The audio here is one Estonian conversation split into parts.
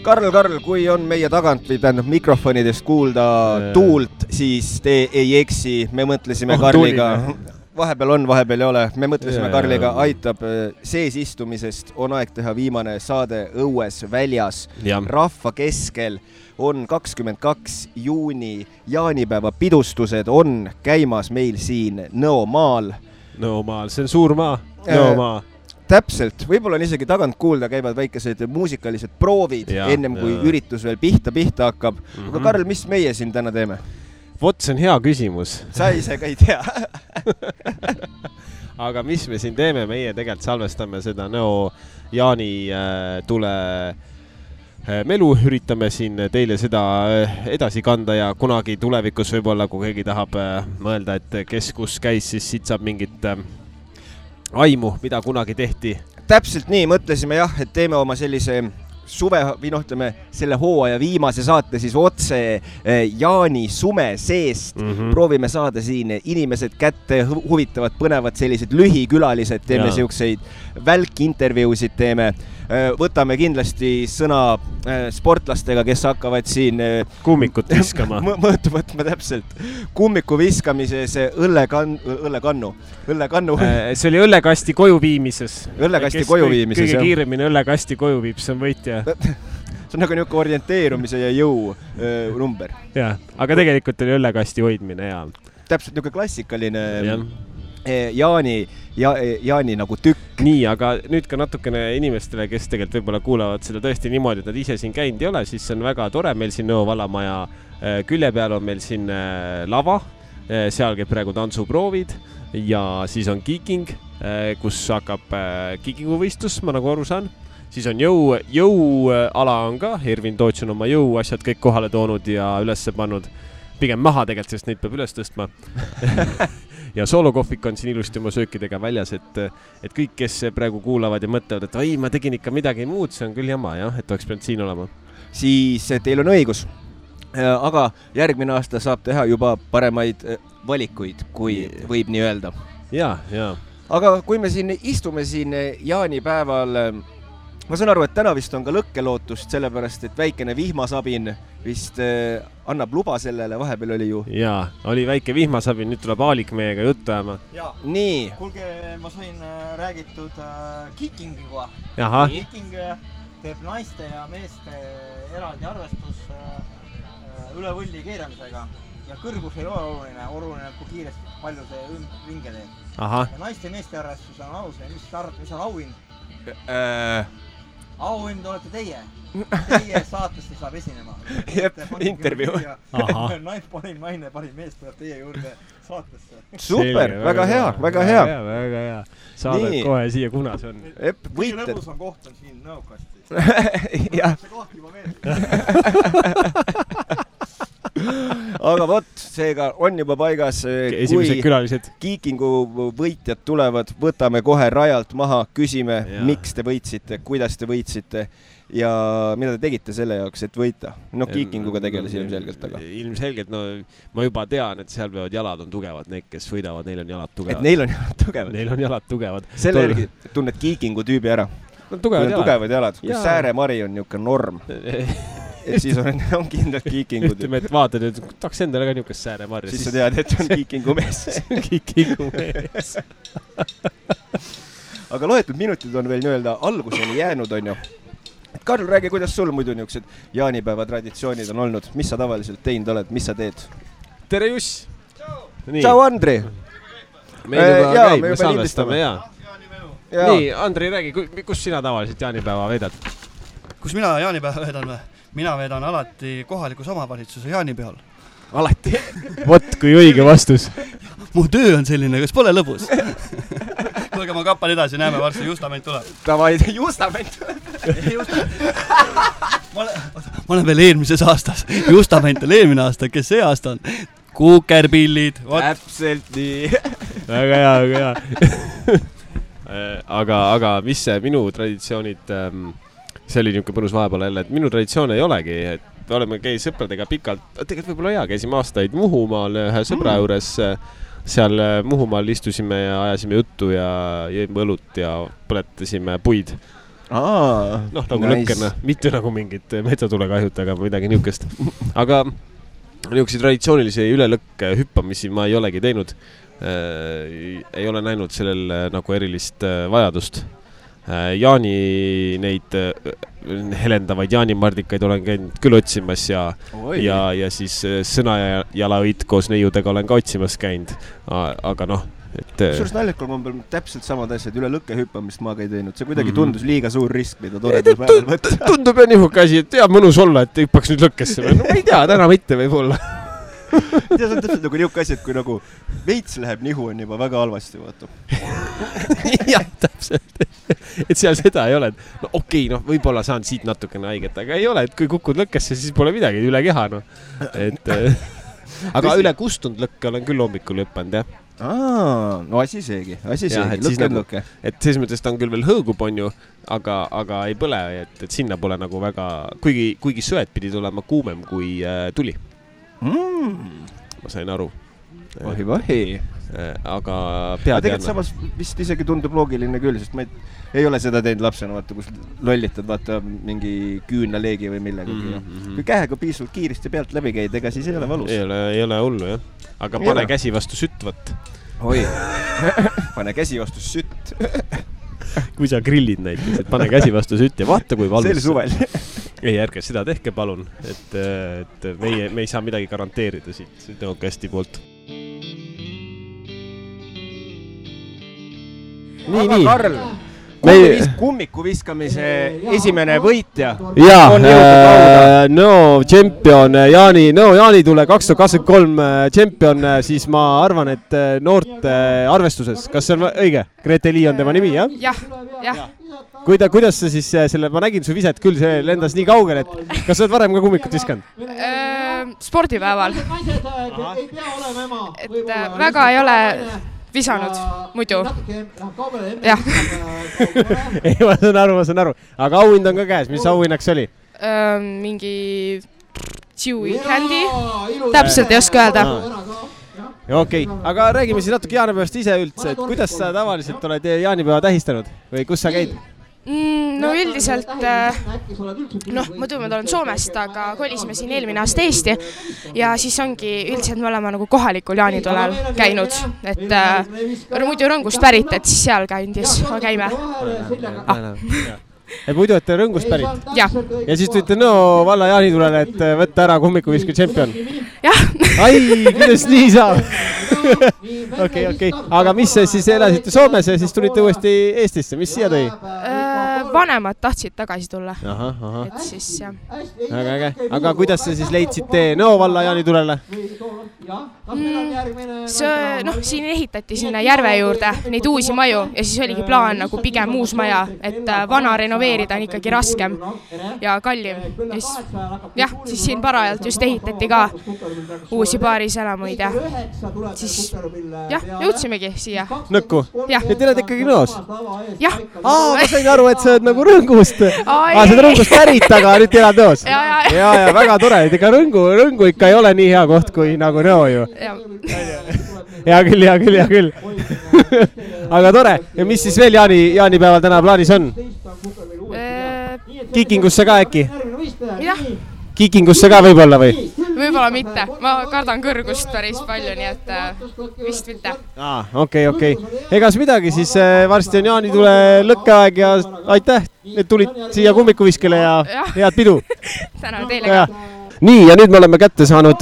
Karl, kui on meie tagant või tähendab mikrofonidest kuulda tuult, siis te ei eksi, me mõtlesime Karliga. Vahepeal on, vahepeal ei ole. Me mõtlesime Karliga, aitab sees istumisest. On aeg teha viimane saade õues väljas. Rahva keskel on 22. juuni jaanipäeva pidustused on käimas meil siin Nõomaal. Nõomaal, see on suur maa. Nõomaa. Täpselt, võib-olla on isegi tagant kuulda, käivad väikesed muusikalised proovid ennem kui üritus veel pihta hakkab. Aga Karl, mis meie siin täna teeme? Vot, see on hea küsimus. Sa ise ka ei tea. Aga mis me siin teeme? Meie tegelikult salvestame seda Nõo Jaani tule melu, üritame siin teile seda edasi kanda ja kunagi tulevikus võib-olla, kui keegi tahab mõelda, et kes kus käis, siis siit saab mingit aimu, mida kunagi tehti. Täpselt nii, mõtlesime jah, et teeme oma sellise suve, või ütleme, selle hooaja viimase saate siis otse Jaani sume seest. Proovime saada siin inimesed kätte, huvitavad, põnevad sellised lühikülalised, teeme siukseid välkintervjuusid teeme. Võtame kindlasti sõna sportlastega, kes hakkavad siin kummikut viskama. Mõõtu võtma täpselt. Kummiku viskamises õllekannu. See oli õllekasti koju viimises. Õllekasti koju viimises, kõige kiiremini õllekasti koju viib, see on võitja. See on nagu niuke orienteerumise ja jõu number. Jah, aga tegelikult oli õllekasti hoidmine ja täpselt niuke klassikaline Jaani nagu tükk. Nii, aga nüüd ka natukene inimestele, kes tegelikult võib-olla kuulavad seda tõesti niimoodi, et nad ise siin käinud ei ole, siis see on väga tore. Meil siin Nõo vallamaja külje peal on meil siin lava, seal käib praegu tantsuproovid ja siis on kiiking, kus hakkab kiikinguvõistlus, ma nagu aru saan. Siis on jõuala on ka, Ervin Toots on oma jõuasjad kõik kohale toonud ja üles pannud. Pigem maha tegelikult, sest neid peab üles tõstma. Ja soolokohvik on siin ilusti oma söökidega väljas, et kõik, kes praegu kuulavad ja mõtlevad, et ma tegin ikka midagi muud, see on küll jama, et oleks pidanud siin olema. Siis teil on õigus, aga järgmine aasta saab teha juba paremaid valikuid, kui võib nii öelda. Ja. Aga kui me siin istume siin jaanipäeval, ma saan aru, et täna vist on ka lõkkelootust, sellepärast, et väikene vihmasabin vist annab luba sellele, vahepeal oli ju. Jaa, oli väike vihmasabin, nüüd tuleb Aalik meiega juttu ajama. Nii. Kuulge, ma sain räägitud kiikingiga. Kiiking teeb naiste ja meeste eraldi arvestus üle võlli keeramisega. Ja kõrgus ei ole oluline, kui kiiresti palju see ringe teeb. Ja naiste ja meeste arvestus on alusel, mis on auhind? Auhind olete teie. Teie saatesti saab esinema. Intervjuu. Parim naine, parim mees tuleb teie juurde saatesse. Super, väga hea. Saadad kohe siia, kuna see on. Kõige lõbus on koht on siin Nõokasti. See koht juba meeldib. Aga vot, seega on juba paigas, esimesed külalised. Kiikingu võitjad tulevad, võtame kohe rajalt maha, küsime, miks te võitsite, kuidas te võitsite ja mida te tegite selle jaoks, et võita. Kiikinguga tegeles ilmselgelt. Ilmselgelt, ma juba tean, et seal peavad jalad on tugevad, need, kes võidavad, neil on jalad tugevad. Et neil on jalad tugevad. Selle järgi tunned kiikingu tüübi ära. Tugevad jalad. Kui Sääremari on niuke norm. Et siis on kindlalt kiikingud. Ütleme, et vaatad, et tahaks endale ka niukest Sääremarja. Siis sa tead, et on kiikingu mees. Kiikingu mees. Aga loetud minutid on veel nii-öelda alguseni jäänud, on ju. Karl, räägi, kuidas sul muidu niuksed jaanipäeva traditsioonid on olnud? Mis sa tavaliselt teinud oled? Mis sa teed? Tere, Juss! Tšau, Andri! Meil juba käib, me salvestame, jaa. Nii, Andri, räägi, kus sina tavaliselt jaanipäeva veedad? Kus mina jaanipäeva veedan või? Mina veedan alati kohalikus omavalitsuse jaanipeal. Alati? Vot, kui õige vastus. Mu töö on selline, kas pole lõbus? Tulge, ma kappan edasi, näeme, varsti Justament tuleb. Davai, Justament tuleb. Ma olen veel eelmises aastas. Justament on eelmine aasta, kes see aasta on? Kukerpillid. Täpselt nii. Väga hea. Aga mis see minu traditsioonid... See oli niuke põnus vahepeal jälle, et minu traditsioon ei olegi, et me oleme käi sõpradega pikalt, tegelikult võib-olla hea, käisime aastaid Muhumaal ühe sõbra juures, seal Muhumaal istusime ja ajasime juttu ja jõime õlut ja põletasime puid. Nagu lõkkena, mitte nagu mingid metsatulekahjud, aga midagi niukest. Aga niisuguseid traditsioonilisi ülelõkke hüppamisi ma ei olegi teinud. Ei ole näinud sellel nagu erilist vajadust. Jaani neid helendavaid jaanimardikaid olen käinud küll otsimas ja siis sõnajalaõit koos neiudega olen ka otsimas käinud. Aga Suures naljakul ma peal täpselt samad asjad, üle lõkke hüppamist ma ka ei teinud. See kuidagi tundus liiga suur risk, mida toredal päeval võtta. Tundub ja nihuke asi, et mõnus olla, et hüppaks nüüd lõkkesse. No ma ei tea, täna mitte võib olla. See on täpselt nagu nihuke asi, et kui nagu veits läheb nihu, on juba väga halvasti, vaata. Jah, täpselt. Et seal seda ei ole. Okei, võib-olla saan siit natukene haiget, aga ei ole, et kui kukud lõkkesse, siis pole midagi üle keha. Aga üle kustunud lõkke olen küll hommikul hüppanud, jah. Asi seegi, lõkke. Et selles mõttes ta on küll veel hõõgub, on ju, aga ei põle, et sinna pole nagu väga, kuigi söed pidid olema kuumem kui tuli. Ma sain aru. Vahi. Aga tegelikult samas vist isegi tundub loogiline küll, sest ma ei ole seda teinud lapsena, vaata, kus lollitad, vaata, mingi küünaleegi või millegagi. Kui käega piisvalt kiiresti pealt läbi käid, ega siis ei ole valus. Ei ole hullu, jah. Aga pane käsi vastu sütt, võt. Pane käsi vastu sütt. Kui sa grillid näiteks, et pane käsi vastu sütt ja vaata, kui valus. See oli suvel. Ei, ärge seda tehke, palun. Et me ei saa midagi garanteerida siit tõokasti poolt. Aga Karl, kummiku viskamise esimene võitja on jõudnud lauda. Jaani tule 2023 tšempion, siis ma arvan, et noorte arvestuses. Kas see on õige? Grete Lee on tema nimi, jah? Jah. Kuidas sa siis selle, ma nägin su viset küll, see lendas nii kaugel, et kas sa oled varem ka kummikut viskanud? Spordipäeval. Et väga ei ole visanud muidu. Jah. Ei, ma saan aru. Aga auhind on ka käes. Mis auhinnaks oli? Mingi Chewy Candy. Täpselt ei oska öelda. Okei, aga räägime siis natuke jaanipäevast ise üldse. Et kuidas sa tavaliselt oled jaanipäeva tähistanud? Või kus sa käid? No üldiselt, muidu ma olen Soomest, aga kolisime siin eelmine aasta Eesti ja siis ongi üldiselt me oleme nagu kohalikul jaanitulel käinud, et muidu Rõngust pärit, et siis seal käime. Et muidu, et Rõngust pärit? Jah. Ja siis tulite Nõo valla jaanitulele, et võtta ära kummikuviske tšempion? Jah. Ai, kuidas nii saab? Okei. Aga mis siis elasite Soomes ja siis tulite uuesti Eestisse? Mis siia tõi? Vanemad tahtsid tagasi tulla. Et siis, jah. Väga äge. Aga kuidas sa siis leidsite Nõo valla jaanitulele? Siin ehitati sinna järve juurde neid uusi maju ja siis oligi plaan nagu pigem uus maja, et vana renoveerida on ikkagi raskem ja kallim. Siis siin parajalt just ehitati ka uusi paariselamuid ja siis jõudsimegi siia. Nõkku? Ja te oled ikkagi Nõos? Jah. Ma sain aru, et sa oled nagu Rõngust. Sa oled Rõngust pärit, aga nüüd elad Nõos. Ja, väga tore. Ega Rõngu ikka ei ole nii hea koht kui nagu Nõo ju. Hea küll. Aga tore. Ja mis siis veel jaanipäeval täna plaanis on? Kikingusse ka äkki? Jah. Kikingusse ka võib-olla või? Võib-olla mitte. Ma kardan kõrgust päris palju, nii et vist mitte. Okei. Egas midagi, siis varsti on jaanitule lõkkeaeg ja aitäh, et tulid siia kummikuviskele ja head pidu. Tänan teile ka. Nii, ja nüüd me oleme kätte saanud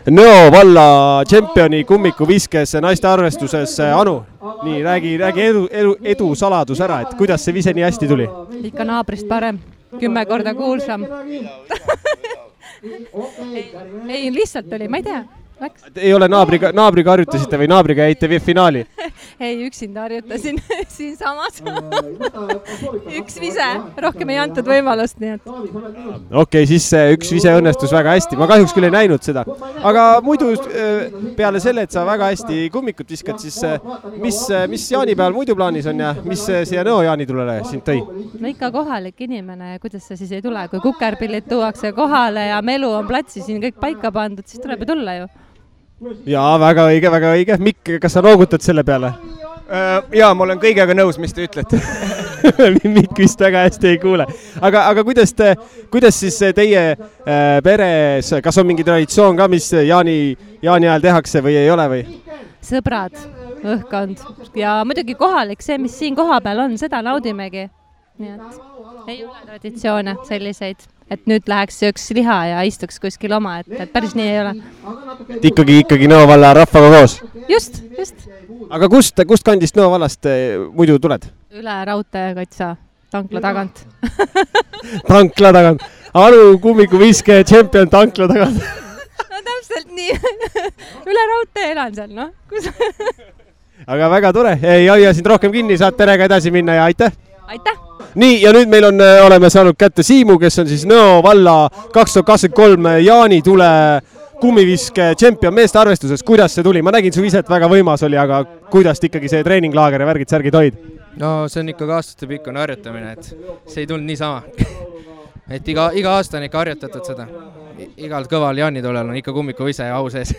Nõo valla tšempioni kummikuviskes naiste arvestuses Anu. Nii, räägi edu saladus ära, et kuidas see vise nii hästi tuli? Ikka naabrist parem, 10 korda kuulsam. Ei, lihtsalt oli, ma ei tea. Ei ole naabriga harjutasite või naabriga jäite finaali? Ei, üksinda harjutasin siin samas. Üks vise, rohkem ei antud võimalust, nii et. Okei, siis üks vise õnnestus väga hästi. Ma kahjuks küll ei näinud seda. Aga muidu peale selle, et sa väga hästi kummikut viskad, siis mis jaanipäeval muidu plaanis on ja mis siia Nõo jaanitulele sind tõi? No ikka kohalik inimene, kuidas sa siis ei tule? Kui kukerpillid tuuakse kohale ja melu on platsi siin kõik paika pandud, siis tuleb ju tulla ju. Jaa, väga õige. Mikk, kas sa noogutad selle peale? Jaa, ma olen kõigega nõus, mis te ütlete. Mikk vist väga hästi ei kuule. Aga kuidas siis teie peres, kas on mingi traditsioon ka, mis jaani ajal tehakse või ei ole või? Sõbrad, õhkkond ja muidugi kohalik, see, mis siin koha peal on, seda naudimegi. Nii et ei ole traditsioone selliseid, et nüüd läheks sööks liha ja istuks kuskil oma, et päris nii ei ole. Ikkagi Nõo valla rahvaga koos? Just. Aga kust kandist Nõo vallast muidu tuled? Üle raudtee katsa, tankla tagant. Tankla tagant. Aru kummikuviske tšempion tankla tagant. No täpselt nii. Üle raudtee elan seal, noh. Aga väga tore. Ei hoia sind rohkem kinni, saad perega edasi minna ja aitäh! Aitäh! Nii, ja nüüd meil oleme saanud kätte Siimu, kes on siis Nõo valla 2023 jaanitule kummiviske tšempion meeste arvestuses. Kuidas see tuli? Ma nägin su ise, et väga võimas oli, aga kuidas ikkagi see treeninglaager ja värgid-särgid hoid? No see on ikkagi aastatepikkune harjutamine, et see ei tulnud niisama. Et iga aasta on ikka harjutatud seda. Igal kõval jaanitulel on ikka kummikuvise ja au sees.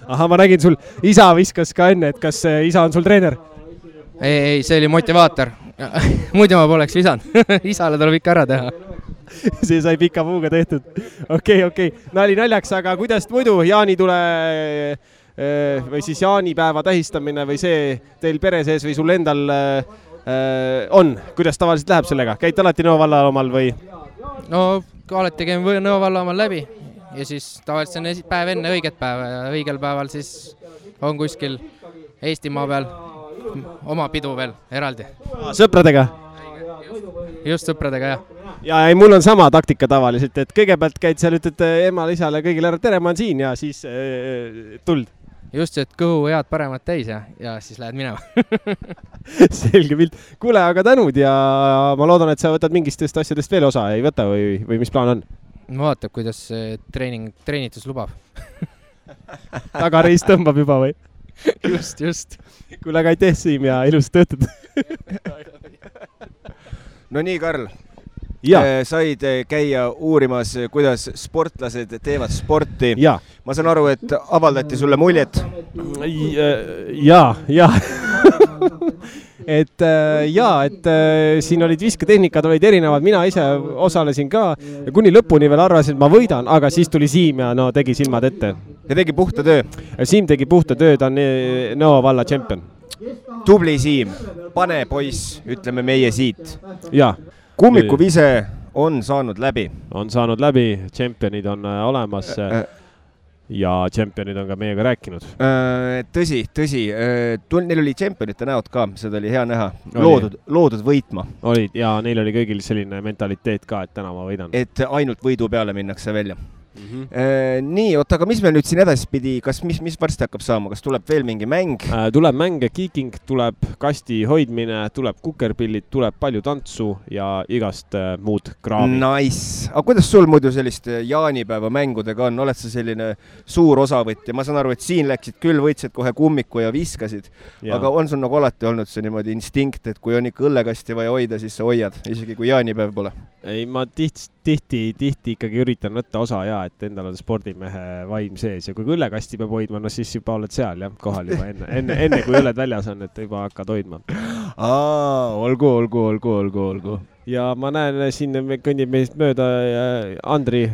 Aha, ma nägin sul isa viskas ka enne, et kas isa on sul treener? Ei, see oli motivaator. Muidu ma poleks visanud. Isale tuleb ikka ära teha. See sai pika puuga tehtud. Okei. Nali naljaks, aga kuidas muidu jaanitule või siis jaanipäeva tähistamine või see teil pere sees või sul endal on? Kuidas tavaliselt läheb sellega? Käid alati Nõo valla omal või? No alati käin Nõo valla omal läbi ja siis tavaliselt on päev enne õiget päeva ja õigel päeval siis on kuskil Eestimaa peal oma pidu veel eraldi. Sõpradega? Just sõpradega, jah. Ja ei, mul on sama taktika tavaliselt, et kõigepealt käid seal, ütled emale, isale kõigile ära, tere, ma on siin ja siis tuld. Just, et kõhu head paremat täis ja siis lähed minema. Selge pilt. Kuule, aga tänud ja ma loodan, et sa võtad mingistest asjadest veel osa, ei võta või mis plaan on? Ma vaatab, kuidas treenitus lubab. Tagareis tõmbab juba või? Just. Kuule, aga aitäh, Siim, ja ilus töötad. No nii, Karl. Said käia uurimas, kuidas sportlased teevad sporti. Ja. Ma saan aru, et avaldati sulle muljet. Ja. et siin olid visketehnikad, olid erinevad, mina ise osalesin ka ja kuni lõpuni veel arvasin, et ma võidan, aga siis tuli Siim ja no tegi silmad ette. Ja tegi puhta töö. Siim tegi puhta töö, ta on Nõo valla tšempion. Tubli Siim, pane poiss, ütleme meie siit. Ja. Kummikuvise on saanud läbi. On saanud läbi, tšempionid on olemas ja tšempionid on ka meiega rääkinud. Tõsi. Neil oli tšempionite näod ka, seda oli hea näha. Loodud võitma. Olid ja neil oli kõigil selline mentaliteet ka, et täna ma võidan. Et ainult võidu peale minnakse välja. Nii, aga mis meil nüüd siin edaspidi, mis varsti hakkab saama, kas tuleb veel mingi mäng? Tuleb mäng, kiiking, tuleb kasti hoidmine, tuleb kukerpillid, tuleb palju tantsu ja igast muud kraami. Nice. Aga kuidas sul muidu sellist jaanipäeva mängudega on? Oled sa selline suur osavõtja? Ma saan aru, et siin läksid küll, võitsid kohe kummiku ja viskasid, aga on sul nagu alati olnud see niimoodi instinkt, et kui on ikka õllekasti vaja hoida, siis sa hoiad, isegi kui jaanipäev pole? Ei, ma tihti ikkagi üritan võtta osa ja et endal on spordimehe vaim sees ja kui õllekasti peab hoidma, no siis juba oled seal jah, kohal juba enne kui õlled väljas on, et juba hakkad hoidma. Olgu. Ja ma näen, siin kõnnib meist mööda Andri.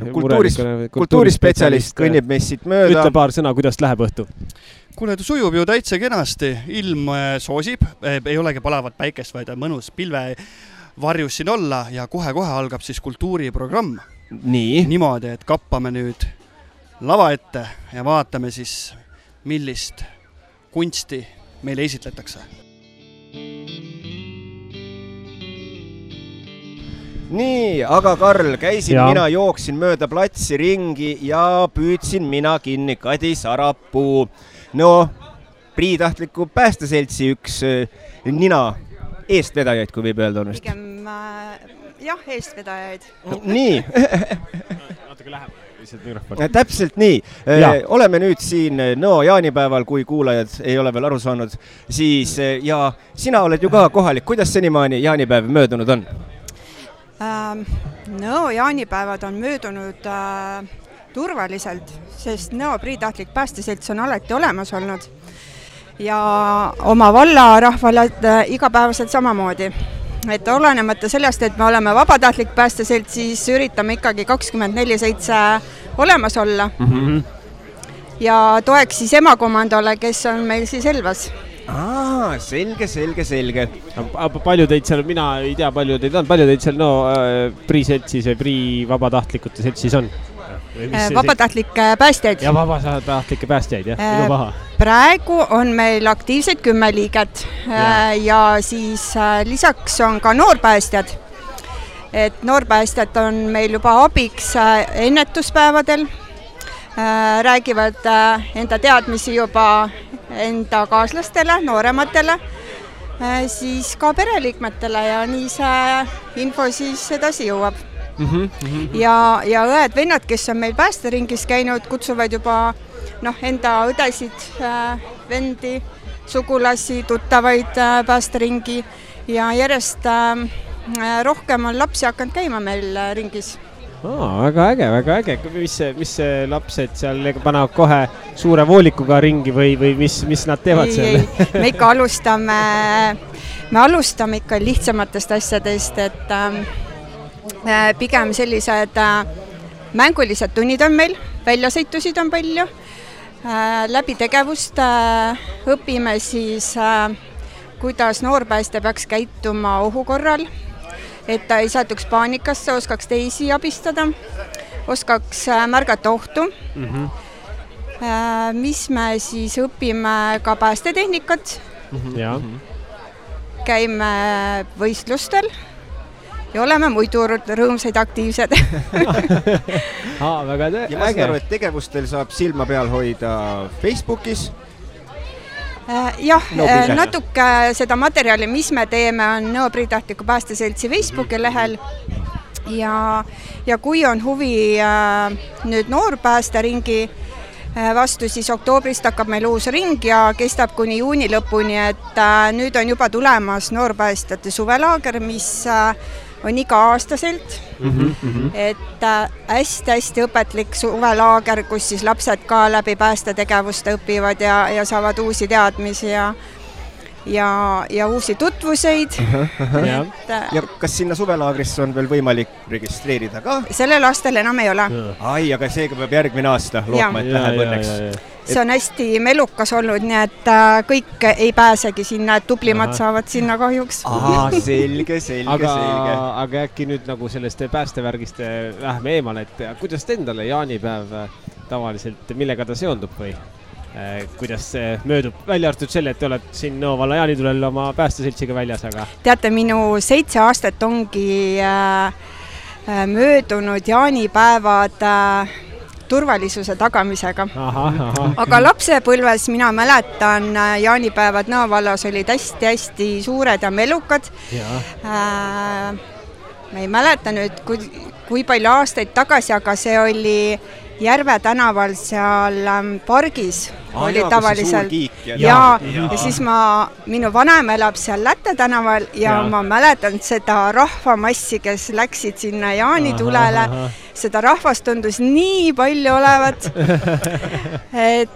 Kultuurispetsialist kõnnib meist siit mööda. Ütle paar sõna, kuidas läheb õhtu? Kuule, sujub ju täitsa kenasti. Ilm soosib, ei olegi palavat päikest, vaid mõnus pilve varjus siin olla ja kohe-kohe algab siis kultuuriprogramm. Nii. Niimoodi, et kappame nüüd lava ette ja vaatame siis, millist kunsti meile esitletakse. Nii, aga Karl, mina jooksin mööda platsi ringi ja püüdsin mina kinni Kadi Sarapuu. No, Priitahtliku päästeseltsi üks nina eestvedajaid, kui võib öelda on. Pigem, jah, eestvedajaid. Nii. Natuke lähemale, lihtsalt mikrofon. Täpselt nii. Oleme nüüd siin Nõo jaanipäeval, kui kuulajad ei ole veel aru saanud. Siis, ja sina oled ju ka kohalik. Kuidas senimaani jaanipäev möödunud on? Nõo jaanipäevad on möödunud turvaliselt, sest Nõo Priitahtlik päästeselts on alati olemas olnud. Ja oma valla rahvale igapäevaselt samamoodi. et olenemata sellest, et me oleme vabatahtlik päästeselt, siis üritame ikkagi 24/7 olemas olla. Ja toeks siis emakomandole, kes on meil siis Elvas. Selge. Palju teid seal, mina ei tea, palju teid on, palju teid seal Prii seltsis või Prii vabatahtlikute seltsis on? Vabatahtlikke päästjaid. Ja vabatahtlikke päästjaid, jah, minu paha. Praegu on meil aktiivseid 10 liiget ja siis lisaks on ka noorpäästjad. Et noorpäästjad on meil juba abiks ennetuspäevadel, räägivad enda teadmisi juba enda kaaslastele, noorematele, siis ka pereliikmetele ja nii see info siis edasi jõuab. Ja õed-vennad, kes on meil päästeringis käinud, kutsuvad juba enda õdesid, vendi, sugulasi, tuttavaid päästeringi ja järjest rohkem on lapsi hakanud käima meil ringis. Väga äge. Mis lapsed seal panevad kohe suure voolikuga ringi või mis nad teevad seal? Me ikka alustame ikka lihtsamatest asjadest, et pigem sellised mängulised tunnid on meil, väljasõitusid on palju. Läbi tegevust õpime siis, kuidas noorpäästja peaks käituma ohu korral, et ta ei satuks paanikasse, oskaks teisi abistada, oskaks märgata ohtu. Mis me siis õpime ka päästetehnikat. Käime võistlustel ja oleme muidu rõõmsaid aktiivsed. Väga ja ma saan aru, et tegevustel saab silma peal hoida Facebookis. Jah, natuke seda materjali, mis me teeme, on Nõo Priitahtliku Päästeseltsi Facebooki lehel ja kui on huvi nüüd noorpäästeringi vastu, siis oktoobrist hakkab meil uus ring ja kestab kuni juuni lõpuni, et nüüd on juba tulemas noorpäästjate suvelaager, mis on iga-aastaselt, et hästi õpetlik suvelaager, kus siis lapsed ka läbi päästetegevuste õpivad ja saavad uusi teadmisi ja uusi tutvuseid. Ja kas sinna suvelaagrisse on veel võimalik registreerida ka? Sellel aastal enam ei ole. Aga seega peab järgmine aasta lootma, et läheb õnneks. See on hästi melukas olnud, nii et kõik ei pääsegi sinna, et tublimad saavad sinna kahjuks. Selge. Aga äkki nüüd nagu sellest päästevärgist lähme eemale, et kuidas te endale jaanipäev tavaliselt, millega ta seondub või? Kuidas see möödub? Välja arvatud selle, et te oled siin Nõo valla jaanitulel oma päästeseltsiga väljas, aga... Teate, minu 7 aastat ongi möödunud jaanipäevad turvalisuse tagamisega. Aga lapsepõlves mina mäletan, jaanipäevad Nõo vallas olid hästi suured ja melukad. Ma ei mäleta nüüd, kui palju aastaid tagasi, aga see oli Järve tänaval seal pargis oli tavaliselt. Ja siis minu vanem elab seal Lätte tänaval ja ma mäletan seda rahvamassi, kes läksid sinna jaanitulele. Seda rahvast tundus nii palju olevat, et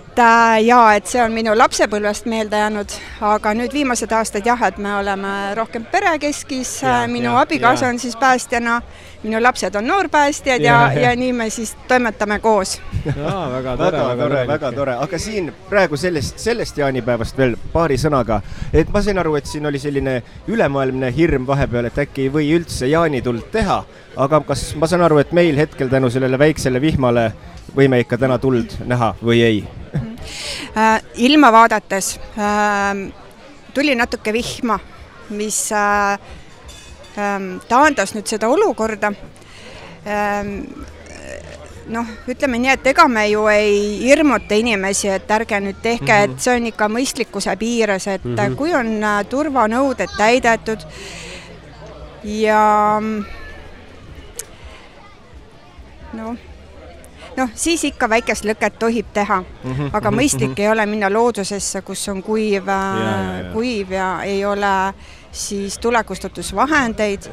see on minu lapsepõlvest meelde jäänud, aga nüüd viimased aastad et me oleme rohkem perekeskis, minu abikaasa on siis päästjana, minu lapsed on noorpäästjad ja nii me siis toimetame koos. Väga tore, aga siin praegu sellest jaanipäevast veel paari sõnaga, et ma sain aru, et siin oli selline ülemaailmne hirm vahepeal, et äkki ei või üldse jaanituld teha, aga kas ma saan aru, et meil hetkel tänu sellele väiksele vihmale võime ikka täna tuld näha või ei? Ilma vaadates tuli natuke vihma, mis taandas nüüd seda olukorda. Ütleme nii, et ega me ju ei hirmuta inimesi, et ärge nüüd tehke, et see on ikka mõistlikkuse piires, et kui on turvanõuded täidetud ja siis ikka väikest lõket tohib teha, aga mõistlik ei ole minna loodusesse, kus on kuiv ja ei ole siis tulekustutusvahendeid.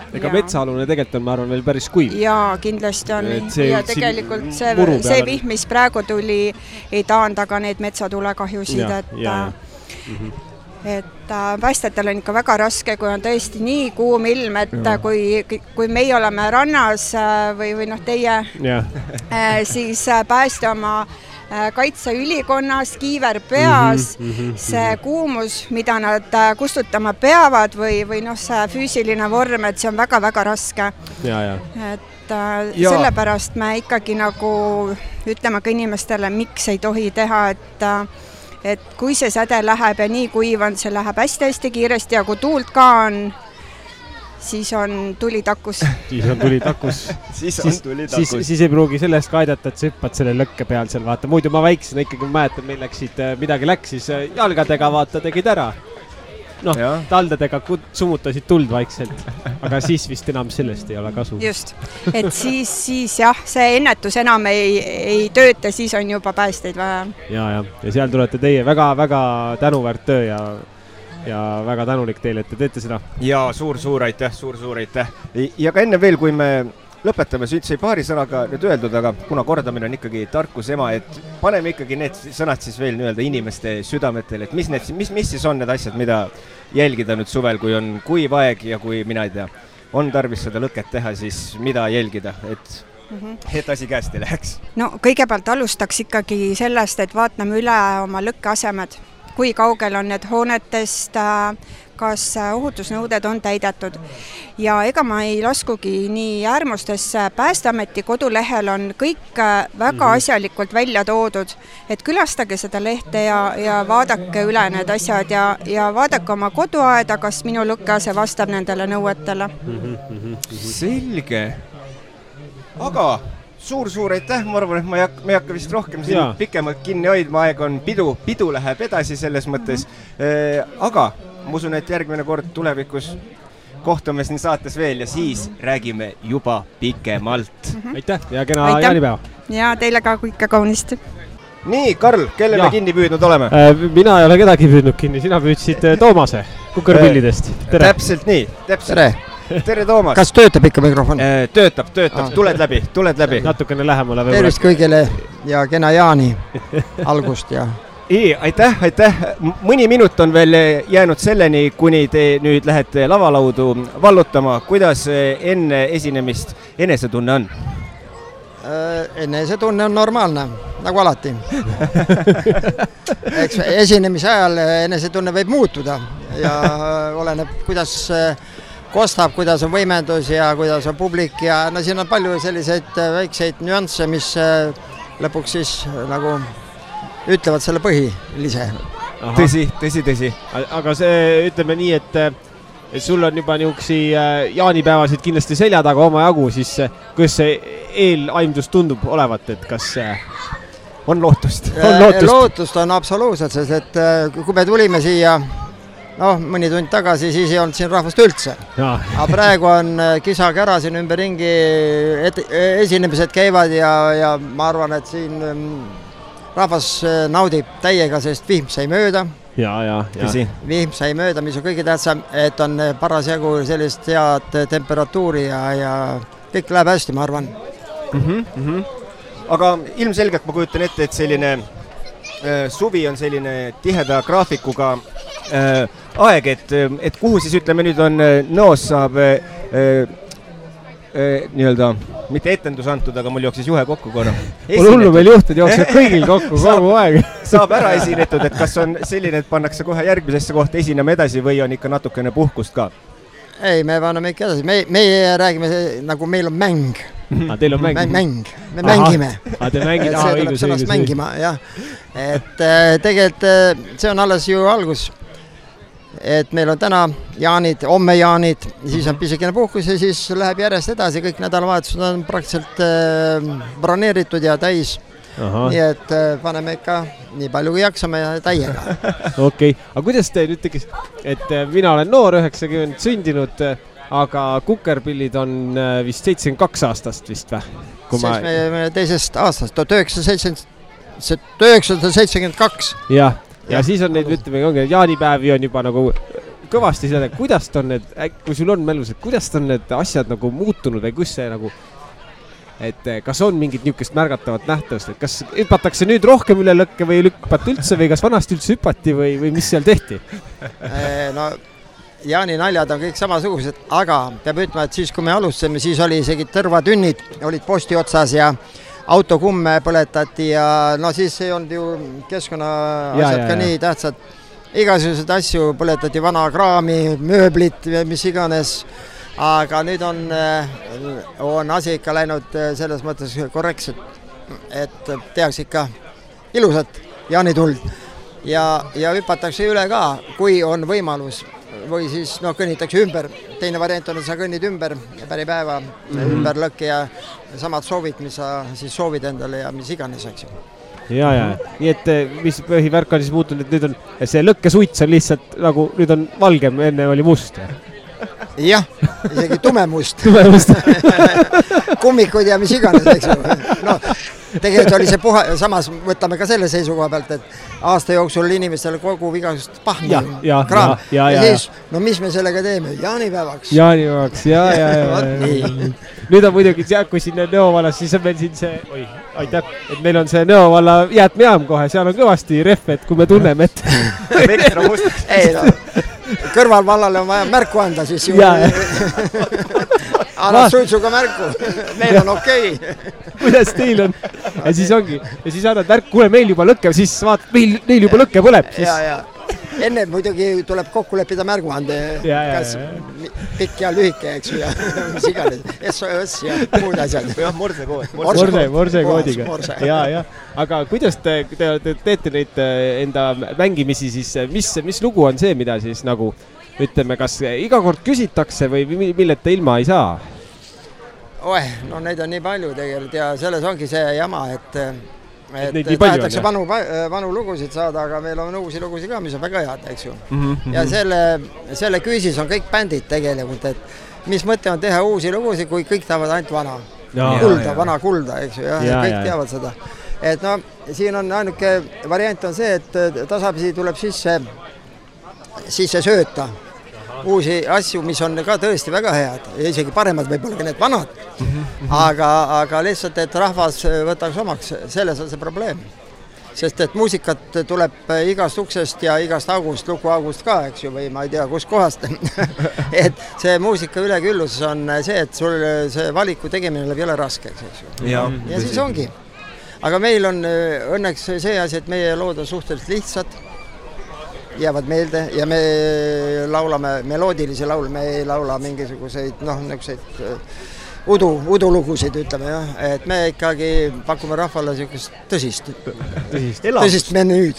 Ega metsaalune tegelikult on, ma arvan, veel päris kuiv. Jaa, kindlasti on. Ja tegelikult see vihm, mis praegu tuli, ei taanda ka neid metsatulekahjusid. et päästjatel on ikka väga raske, kui on tõesti nii kuum ilm, et kui meie oleme rannas või noh, teie, siis päästja oma kaitseülikonnas, kiiver peas, see kuumus, mida nad kustutama peavad või noh, see füüsiline vorm, et see on väga-väga raske. Et sellepärast me ikkagi nagu ütleme ka inimestele, miks ei tohi teha, et kui see säde läheb ja nii kuiv on, see läheb hästi-hästi kiiresti ja kui tuult ka on, siis on tuli takus. Siis ei pruugi sellest ka aidata, et sa hüppad selle lõkke peal seal, vaata. Muidu ma väiksena ikkagi mäletan, meil midagi läks, siis jalgadega vaata tegid ära. Noh, taldadega sumutasid tuld vaikselt, aga siis vist enam sellest ei ole kasu. Just, et siis jah, see ennetus enam ei tööta, siis on juba päästeid vaja. Ja seal tulete teie väga-väga tänuväärt töö ja väga tänulik teile, et te teete seda. Ja suur-suur aitäh. Ja ka enne veel, kui me lõpetame, sai paari sõnaga nüüd öeldud, aga kuna kordamine on ikkagi tarkus ema, et paneme ikkagi need sõnad siis veel nii-öelda inimeste südametel, et mis siis on need asjad, mida jälgida nüüd suvel, kui on kuiv aeg ja kui mina ei tea, on tarvis seda lõket teha, siis mida jälgida, et asi käest ei läheks? No kõigepealt alustaks ikkagi sellest, et vaatame üle oma lõkkeasemed, kui kaugel on need hoonetest, kas ohutusnõuded on täidetud. Ja ega ma ei laskugi nii äärmustesse, Päästeameti kodulehel on kõik väga asjalikult välja toodud, et külastage seda lehte ja vaadake üle need asjad ja vaadake oma koduaeda, kas minu lõkkease vastab nendele nõuetele. Selge. Aga suur aitäh, ma arvan, et me ei hakka vist rohkem siin pikemalt kinni hoidma, aeg on pidu läheb edasi selles mõttes, aga ma usun, et järgmine kord tulevikus kohtume siin saates veel ja siis räägime juba pikemalt. Aitäh ja kena jaanipäeva. Ja teile ka kõike kaunist. Nii, Karl, kelle me kinni püüdnud oleme? Mina ei ole kedagi püüdnud kinni, sina püüdsid Toomase Kukerpillidest. Tere. Täpselt nii, Tere, Toomas. Kas töötab ikka mikrofon? Töötab, tuled läbi. Natukene lähemale. Tervist kõigile ja kena jaani algust ja... Aitäh. Mõni minut on veel jäänud selleni, kuni te nüüd lähete lavalaudu vallutama. Kuidas enne esinemist enesetunne on? Enesetunne on normaalne, nagu alati. Eks esinemise ajal enesetunne võib muutuda ja oleneb, kuidas kostab, kuidas on võimendus ja kuidas on publik ja no siin on palju selliseid väikseid nüansse, mis lõpuks siis nagu ütlevad selle põhilise. Tõsi. Aga see, ütleme nii, et sul on juba niuksi jaanipäevasid kindlasti selja taga oma jagu, siis kuidas see eelaimdus tundub olevat, et kas on lootust? Lootust on absoluutselt, sest et kui me tulime siia mõni tund tagasi, siis ei olnud siin rahvast üldse. Aga praegu on kisa-kära siin ümberringi, esinemised käivad ja ma arvan, et siin rahvas naudib täiega, sest vihm sai mööda. Vihm sai mööda, mis on kõige tähtsam, et on parasjagu sellist head temperatuuri ja kõik läheb hästi, ma arvan. Aga ilmselgelt ma kujutan ette, et selline suvi on selline tiheda graafikuga aeg, et kuhu siis ütleme nüüd on Nõos saab nii-öelda, mitte etendus antud, aga mul jooksis juhe kokku korra. Mul hullu meil juhtud jookseb kõigil kokku kogu aeg. Saab ära esinetud, et kas on selline, et pannakse kohe järgmisesse kohta esinema edasi või on ikka natukene puhkust ka? Ei, me panname ikka edasi. Meie räägime, nagu meil on mäng. Teil on mäng? Mäng. Me mängime. Te mängid? See tuleb sõnast mängima, jah. Et tegelikult see on alles ju algus. Et meil on täna jaanid, homme jaanid, siis on pisikene puhkus ja siis läheb järjest edasi, kõik nädalavahetused on praktiliselt broneeritud ja täis. Nii et paneme ikka nii palju kui jaksame ja täiega. Okei, aga kuidas te nüüd tekis, et mina olen noor, 90 sündinud, aga Kukerpillid on vist 72 aastast vist või? 72 aastast, 1972. Jah. Ja siis on neid, ütleme, jaanipäevi on juba nagu kõvasti seda, kuidas on need, kui sul on mälus, et kuidas on need asjad nagu muutunud või kus see nagu et kas on mingit niisugust märgatavat nähtavust, et kas hüpatakse nüüd rohkem üle lõkke või ei hüpata üldse või kas vanasti üldse hüpati või mis seal tehti? No Jaani naljad on kõik samasugused, aga peab ütlema, et siis kui me alustasime, siis oli isegi tõrvatünnid, olid posti otsas ja autokumme põletati ja no siis ei olnud ju keskkonna asjad ka nii tähtsad. Igasugused asju põletati, vana kraami, mööblit, mis iganes, aga nüüd on asi ikka läinud selles mõttes korrektselt, et tehakse ikka ilusat jaanituld ja hüpatakse üle ka, kui on võimalus. Või siis kõnnitakse ümber. Teine variant on, et sa kõnnid ümber päripäeva, ümber lõkke ja samad soovid, mis sa siis soovid endale ja mis iganes, eks ju. Ja. Nii et mis põhivärk on siis muutunud, et nüüd on see lõkkesuits on lihtsalt nagu, nüüd on valgem, enne oli must. Jah, isegi tumemust. Kummikud ja mis iganes, eks ju. No, tegelikult oli see samas võtame ka selle seisukoha pealt, et aasta jooksul inimestele kogub igasugust pahmi kraam. Ja siis, no mis me sellega teeme? Jaanipäevaks. Ja. Nüüd on muidugi, kui siin Nõo vallas, siis on meil siin see, aitäh, et meil on see Nõo valla jäätmejaam kohe, seal on kõvasti rehve, et kui me tunneme, et ei, no, kõrvalvallale on vaja märku anda, siis ju annab suitsuga märku, meil on okei. Kuidas teil on? Ja siis ongi, ja siis annad märku, kuule, meil juba lõkke, siis vaatad, neil juba lõkke põleb. Ja. Enne muidugi tuleb kokku leppida märguande, kas pikk ja lühike, eks ju, ja mis iganes, SOS ja muud asjad. Morsekoodiga. Ja. Aga kuidas te teete neid enda mängimisi, siis mis lugu on see, mida siis nagu, ütleme, kas iga kord küsitakse või milleta ilma ei saa? No neid on nii palju tegelikult ja selles ongi see jama, et tahetakse vanu lugusid saada, aga meil on uusi lugusid ka, mis on väga head, eks ju. Ja selle küüsis on kõik bändid tegelikult, et mis mõte on teha uusi lugusid, kui kõik tahavad ainult vana kulda, eks ju, ja kõik teavad seda. Et no, siin on ainuke variant on see, et tasapisi tuleb sisse sööta uusi asju, mis on ka tõesti väga head, isegi paremad võib-olla ka need vanad, aga lihtsalt, et rahvas võtaks omaks, selles on see probleem. Sest et muusikat tuleb igast uksest ja igast august, lukuaugust ka, eks ju, või ma ei tea, kus kohast. Et see muusika üleküllus on see, et sul see valiku tegemine läheb jõle raskeks, eks ju. Ja siis ongi. Aga meil on õnneks see asi, et meie lood on suhteliselt lihtsad, jäävad meelde ja me laulame meloodilisi laule, me ei laula mingisuguseid, niisuguseid udulugusid, ütleme, et me ikkagi pakume rahvale niisugust tõsist menüüd.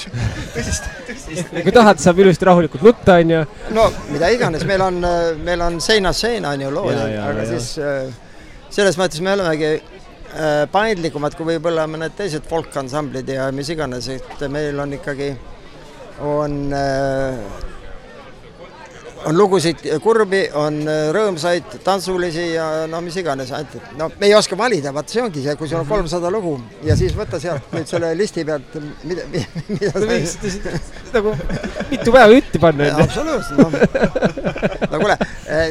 Kui tahad, saab ilusti rahulikult nutta, on ju? No, mida iganes, meil on seinast seina, on ju lood, aga siis selles mõttes me olemegi paindlikumad, kui võib-olla mõned teised folkansamblid ja mis iganes, et meil on ikkagi on lugusid kurbi, on rõõmsaid, tantsulisi ja no mis iganes. No me ei oska valida, vaat see ongi see, kui sul on 300 lugu ja siis võtta sealt nüüd selle listi pealt, mida nagu mitu päeva ütti panna. Absoluutselt. No kuule,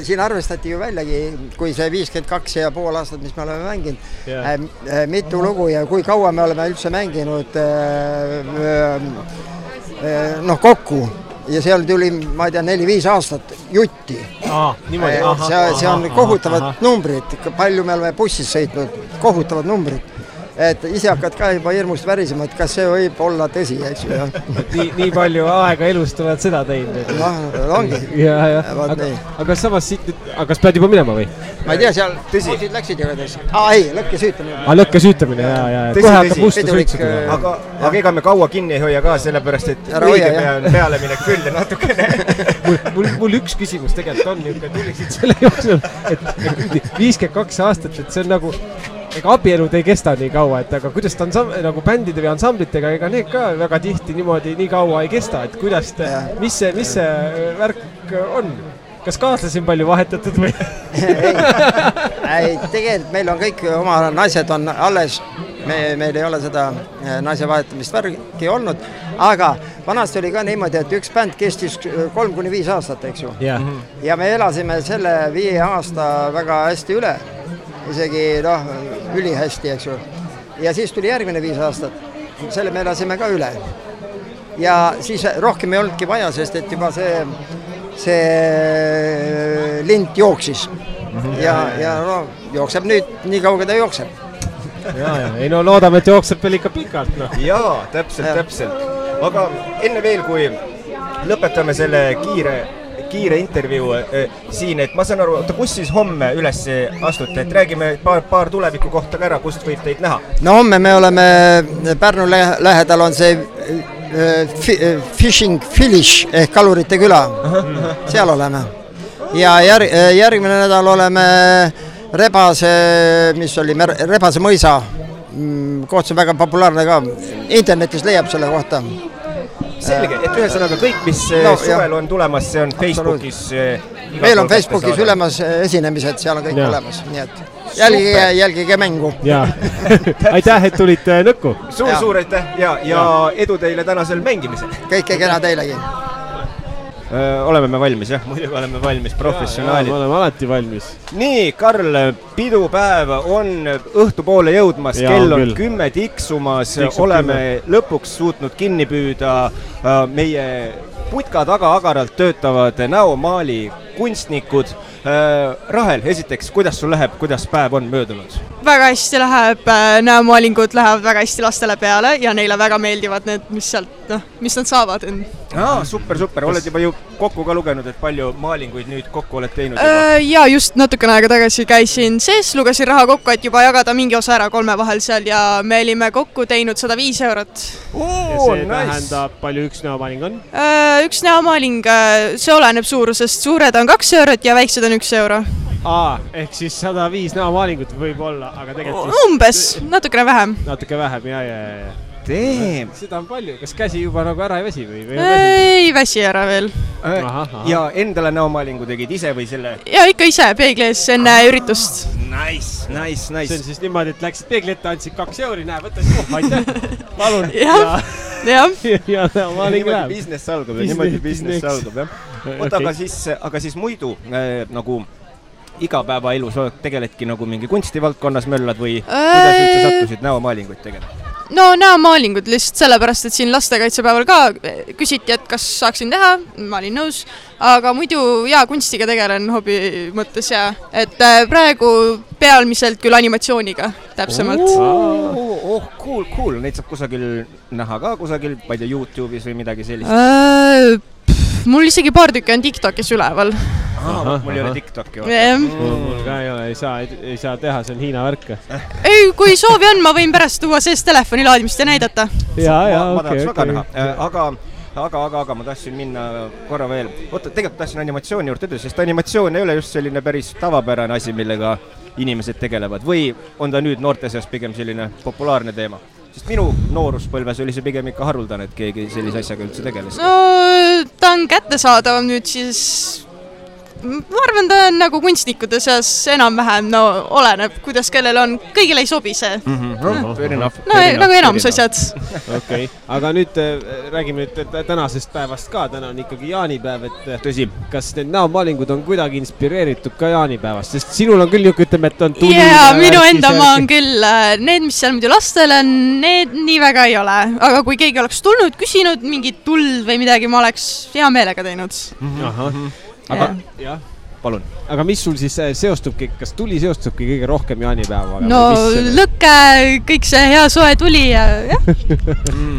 siin arvestati ju väljagi, kui see 52,5 aastat, mis me oleme mänginud, mitu lugu ja kui kaua me oleme üldse mänginud kokku ja seal tuli, ma ei tea, 4-5 aastat jutti. See on kohutavad numbrid, palju me oleme bussis sõitnud, kohutavad numbrid. Et ise hakkad ka juba hirmust värisema, et kas see võib olla tõsi, eks ju. Nii palju aega elust oled seda teinud. Ongi. Aga samas siit, kas pead juba minema või? Ma ei tea, seal bussid läksid ja kõdes. Ei, lõkkesüütamine. Lõkkesüütamine, ja. Kohe hakkab musta sõitsuda. Aga ega me kaua kinni ei hoia ka, sellepärast, et õige peale minek küll ja natukene. Mul üks küsimus tegelikult on, niisugune tuliksid selle jooksul, et 52 aastat, et see on nagu ega abielud ei kesta nii kaua, et aga kuidas ta on nagu bändide või ansamblitega, ega need ka väga tihti niimoodi nii kaua ei kesta, et kuidas mis see värk on? Kas kaaslasi on palju vahetatud või? Ei, tegelikult meil on kõik oma naised on alles, meil ei ole seda naise vahetamist värki olnud, aga vanasti oli ka niimoodi, et üks bänd kestis 3-5 aastat, eks ju. Ja me elasime selle 5 aasta väga hästi üle. isegi ülihästi, eks ju. Ja siis tuli järgmine 5 aastat, selle me elasime ka üle. Ja siis rohkem ei olnudki vaja, sest et juba see lint jooksis. Ja jookseb nüüd, nii kauge ta jookseb. Ei no loodame, et jookseb veel ikka pikalt. No. Jaa, täpselt. Aga enne veel, kui lõpetame selle kiire intervjuu siin, et ma saan aru, kus siis homme üles astute, et räägime paar tuleviku kohta ka ära, kust võib teid näha? No homme me oleme, Pärnu lähedal on see Fishing Village ehk Kalurite küla, seal oleme. Ja järgmine nädal oleme Rebase mõisa, koht on väga populaarne ka, internetis leiab selle kohta. Selge, et ühesõnaga kõik, mis suvel on tulemas, see on Facebookis. Meil on Facebookis ülemas esinemised, seal on kõik olemas, nii et jälgige mängu. Aitäh, et tulite Nõkku. Suur aitäh ja edu teile tänasel mängimisel. Kõike kena teilegi. Oleme me valmis, jah? Muidugi oleme valmis, professionaalid. Me oleme alati valmis. Nii, Karl, pidupäev on õhtupoole jõudmas, kell on 10 tiksumas, oleme lõpuks suutnud kinni püüda meie putka taga agaralt töötavad näomaali kunstnikud. Rahel, esiteks, kuidas sul läheb, kuidas päev on möödunud? Väga hästi läheb, näomaalingud lähevad väga hästi lastele peale ja neile väga meeldivad need, mis nad saavad. Super, oled juba ju kokku ka lugenud, et palju maalinguid nüüd kokku oled teinud? Ja just natukene aega tagasi käisin sees, lugesin raha kokku, et juba jagada mingi osa ära 3 vahel seal ja me olime kokku teinud 105 eurot. Ja see tähendab, palju üks näomaaling on? Üks näomaaling, see oleneb suurusest, suured on 2 eurot ja väiksed on 1 euro. Ehk siis 105 näomaalingut võib olla, aga tegelikult... Umbes, natukene vähem. Natuke vähem, ja. Seda on palju, kas käsi juba nagu ära ei väsi või? Ei väsi ära veel. Ja endale näomaalingu tegid ise või selle? Ja ikka ise peeglis enne üritust. Nice. See on siis niimoodi, et läksid peegli ette, andsid 2 euri, näe, võtta siis aitäh, palun. Ja näomaaling läheb. Niimoodi business algab, jah. Aga siis muidu nagu igapäevaelus tegeledki nagu mingi kunstivaldkonnas möllad või kuidas üldse sattusid näomaalinguid tegema? No näomaalingud lihtsalt sellepärast, et siin lastekaitsepäeval ka küsiti, et kas saaksin teha, ma olin nõus, aga muidu kunstiga tegelen hobi mõttes et praegu pealmiselt küll animatsiooniga täpsemalt. Cool, neid saab kusagil näha ka kusagil, ma ei tea, YouTube'is või midagi sellist? Mul isegi paar tükki on TikTokis üleval. Mul ei ole TikToki. Mul ka ei ole, ei saa teha, see on Hiina värk. Ei, kui soovi on, ma võin pärast tuua sees telefoni laadimist ja näidata. Ma tahaks väga näha, aga ma tahtsin minna korra veel. Tegelikult tahtsin animatsiooni juurde ütelda, sest animatsioon ei ole just selline päris tavapärane asi, millega inimesed tegelevad. Või on ta nüüd noorte seas pigem selline populaarne teema? Sest minu nooruspõlves oli see pigem ikka haruldane, et keegi sellise asjaga üldse tegeles. No, ta on kättesaadav nüüd siis... Ma arvan, ta on nagu kunstnikude seas enam-vähem, oleneb, kuidas kellel on, kõigile ei sobi see. Nagu enamus asjad. Okei, aga nüüd räägime tänasest päevast ka, täna on ikkagi jaanipäev, et tõsi, kas need näomaalingud on kuidagi inspireeritud ka jaanipäevast, sest sinul on küll ütleme, et on tuli... Jaa, minu enda maa on küll, need, mis seal muidu lastel on, need nii väga ei ole, aga kui keegi oleks tulnud, küsinud mingit tuld või midagi, ma oleks hea meelega teinud. Aga, jah, palun. Aga mis sul siis seostubki, kas tuli seostubki kõige rohkem jaanipäevaga? No lõkke, kõik see hea soe tuli ja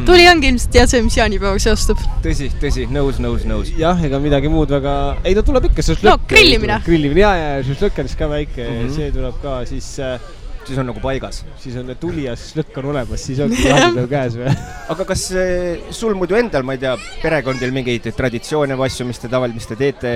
tuli ongi ilmselt tead see, mis jaanipäevaga seostub. Tõsi, nõus. Jah, ega midagi muud väga... Ei, ta tuleb ikka šašlõkk. No, grillimine. Ja šašlõkk on siis ka väike, see tuleb ka siis... Siis on nagu paigas. Siis on tuli ja šašlõkk on olemas, siis ongi jaanipäev käes või? Aga kas sul muidu endal, ma ei tea, perekondil mingeid traditsioone või asju, mis te tavaliselt teete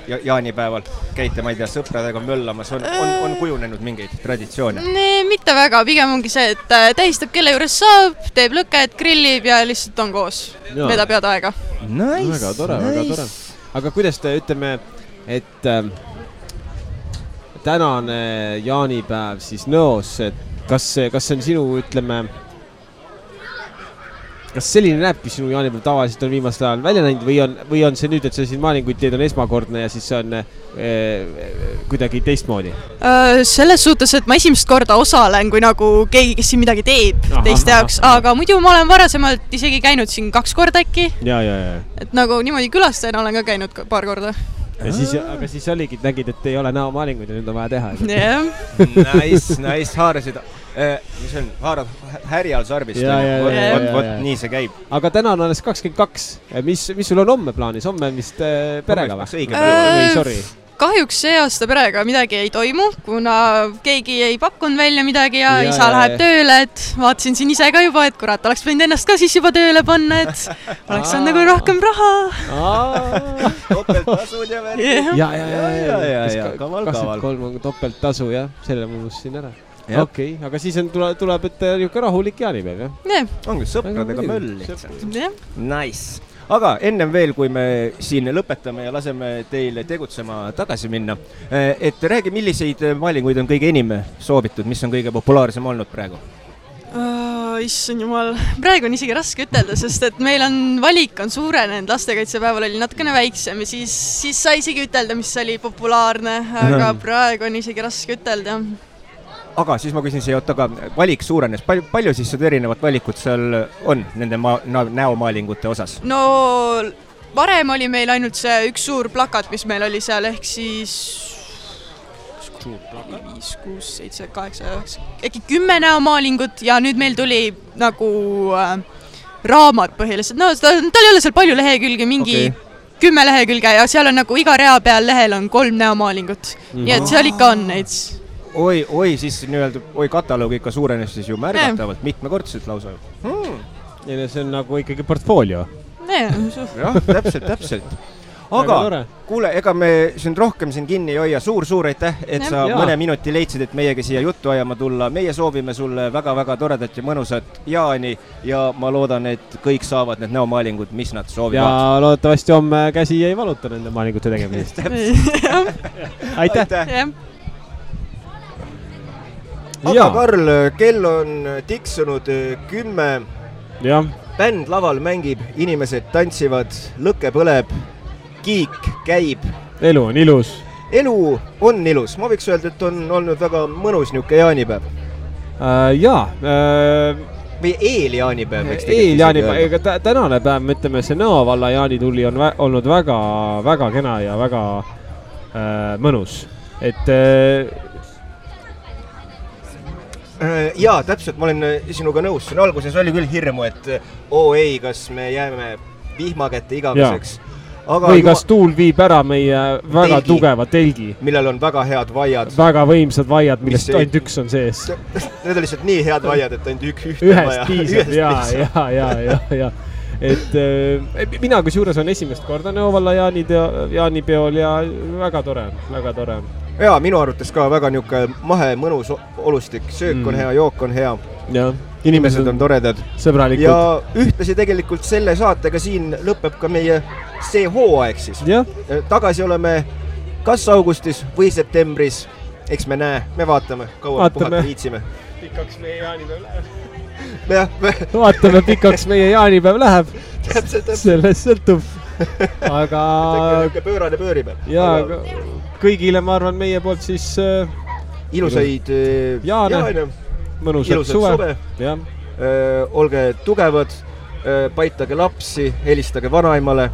jaanipäeval? Käite, ma ei tea, sõpradega möllamas, on kujunenud mingeid traditsioone? Mitte väga, pigem ongi see, et tähistab kelle juures saab, teeb lõket, grillib ja lihtsalt on koos. Vedab head aega. Nice. Väga tore. Aga kuidas te ütleme, et... tänane jaanipäev siis Nõos, et kas see on sinu, ütleme, kas selline näebki sinu jaanipäev tavaliselt on viimasel ajal välja näinud või on see nüüd, et sa siin maalinguid teed on esmakordne ja siis see on kuidagi teistmoodi? Selles suhtes, et ma esimest korda osalen, kui nagu keegi, kes siin midagi teeb teiste jaoks, aga muidu ma olen varasemalt isegi käinud siin 2 korda äkki. Ja. Et nagu niimoodi külastajana olen ka käinud paar korda. Aga siis oligi, et nägid, et ei ole näomaalinguid ja nüüd on vaja teha. Nice, haarasid. Mis on, haarad härjal sarbist. Vot nii see käib. Aga täna on alles 22. Mis sul on homme plaanis? Homme on vist perega või? Sorry. Kahjuks see aasta perega midagi ei toimu, kuna keegi ei pakkunud välja midagi ja isa läheb tööle, et vaatasin siin ise ka juba, et kurat, oleks võinud ennast ka siis juba tööle panna, et oleks on nagu rohkem raha. Topelttasud ja värgi. Ja. Kaval. Topelttasu, jah. Selle muus siin ära. Okei, aga siis tuleb, et niisugune rahulik jaanipäev, jah? Ongi sõpradega möll lihtsalt. Nice. Aga ennem veel, kui me siin lõpetame ja laseme teile tegutsema tagasi minna, et räägi, milliseid maalinguid on kõige enim soovitud, mis on kõige populaarsem olnud praegu? Issand jumal, praegu on isegi raske ütelda, sest et meil on valik on suurenenud, lastekaitsepäeval oli natukene väiksem ja siis sai isegi ütelda, mis oli populaarne, aga praegu on isegi raske ütelda. Aga siis ma küsin siia, aga valik suurenes. Palju siis seda erinevat valikut seal on nende näomaalingute osas? No varem oli meil ainult see üks suur plakat, mis meil oli seal, ehk siis 5, 6, 7, 8, 9, äkki 10 näomaalingut ja nüüd meil tuli nagu raamat põhiliselt. No tal ei ole seal palju lehekülge, mingi 10 lehekülge ja seal on nagu iga rea peal lehel on 3 näomaalingut. Nii et seal ikka on neid. Oi, siis nii-öelda, kataloog ikka suurenes siis ju märgatavalt, mitmekordselt lausa. Ja see on nagu ikkagi portfoolio. Jah, täpselt. Aga kuule, ega me siin rohkem siin kinni ei hoia. Suur aitäh, et sa mõne minuti leidsid, et meiega siia juttu ajama tulla. Meie soovime sulle väga-väga toredat ja mõnusat jaani ja ma loodan, et kõik saavad need näomaalingud, mis nad soovivad. Ja loodetavasti homme käsi ei valuta nende maalingute tegemisest. Aitäh! Aga Karl, kell on tiksunud 10. Bänd laval mängib, inimesed tantsivad, lõkke põleb, kiik käib. Elu on ilus. Elu on ilus. Ma võiks öelda, et on olnud väga mõnus niuke jaanipäev. Või eeljaanipäev. Eeljaanipäev. Tänane päev, me ütleme, see Nõo valla jaanitulli on olnud väga kena ja väga mõnus. Et jaa, täpselt, ma olen sinuga nõus. Siin alguses oli küll hirmu, et ei, kas me jääme vihmakätte igaveseks. Või kas tuul viib ära meie väga tugeva telgi. Millel on väga head vaiad. Väga võimsad vaiad, millest ainult üks on sees. Need on lihtsalt nii head vaiad, et ainult ühte vaja. Ühest piisab, jaa. Et mina kus juures on esimest korda Nõo valla jaanipeol ja väga tore. Jaa, minu arvates ka väga niuke mahe mõnus olustik. Söök on hea, jook on hea. Inimesed on toredad. Sõbralikud. Ja ühtlasi tegelikult selle saatega siin lõpeb ka meie see hooaeg siis. Tagasi oleme kas augustis või septembris. Eks me näe, me vaatame, kaua puhata viitsime. Pikaks meie jaanipäev läheb. Vaatame, pikaks meie jaanipäev läheb. Sellest sõltub. Aga pöörane pöörib. Jaa, kõigile ma arvan meie poolt siis ilusaid jaane, mõnusat suve. Olge tugevad, paitage lapsi, helistage vanaimale,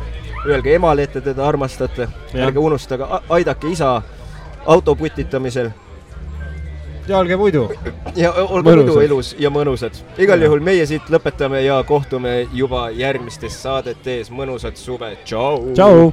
öelge emale, et teda armastate, ärge unustage, aidake isa autoputitamisel. Ja olge muidu. Ja olge muidu elus ja mõnusad. Igal juhul meie siit lõpetame ja kohtume juba järgmistes saadetes. Mõnusat suve. Tšau!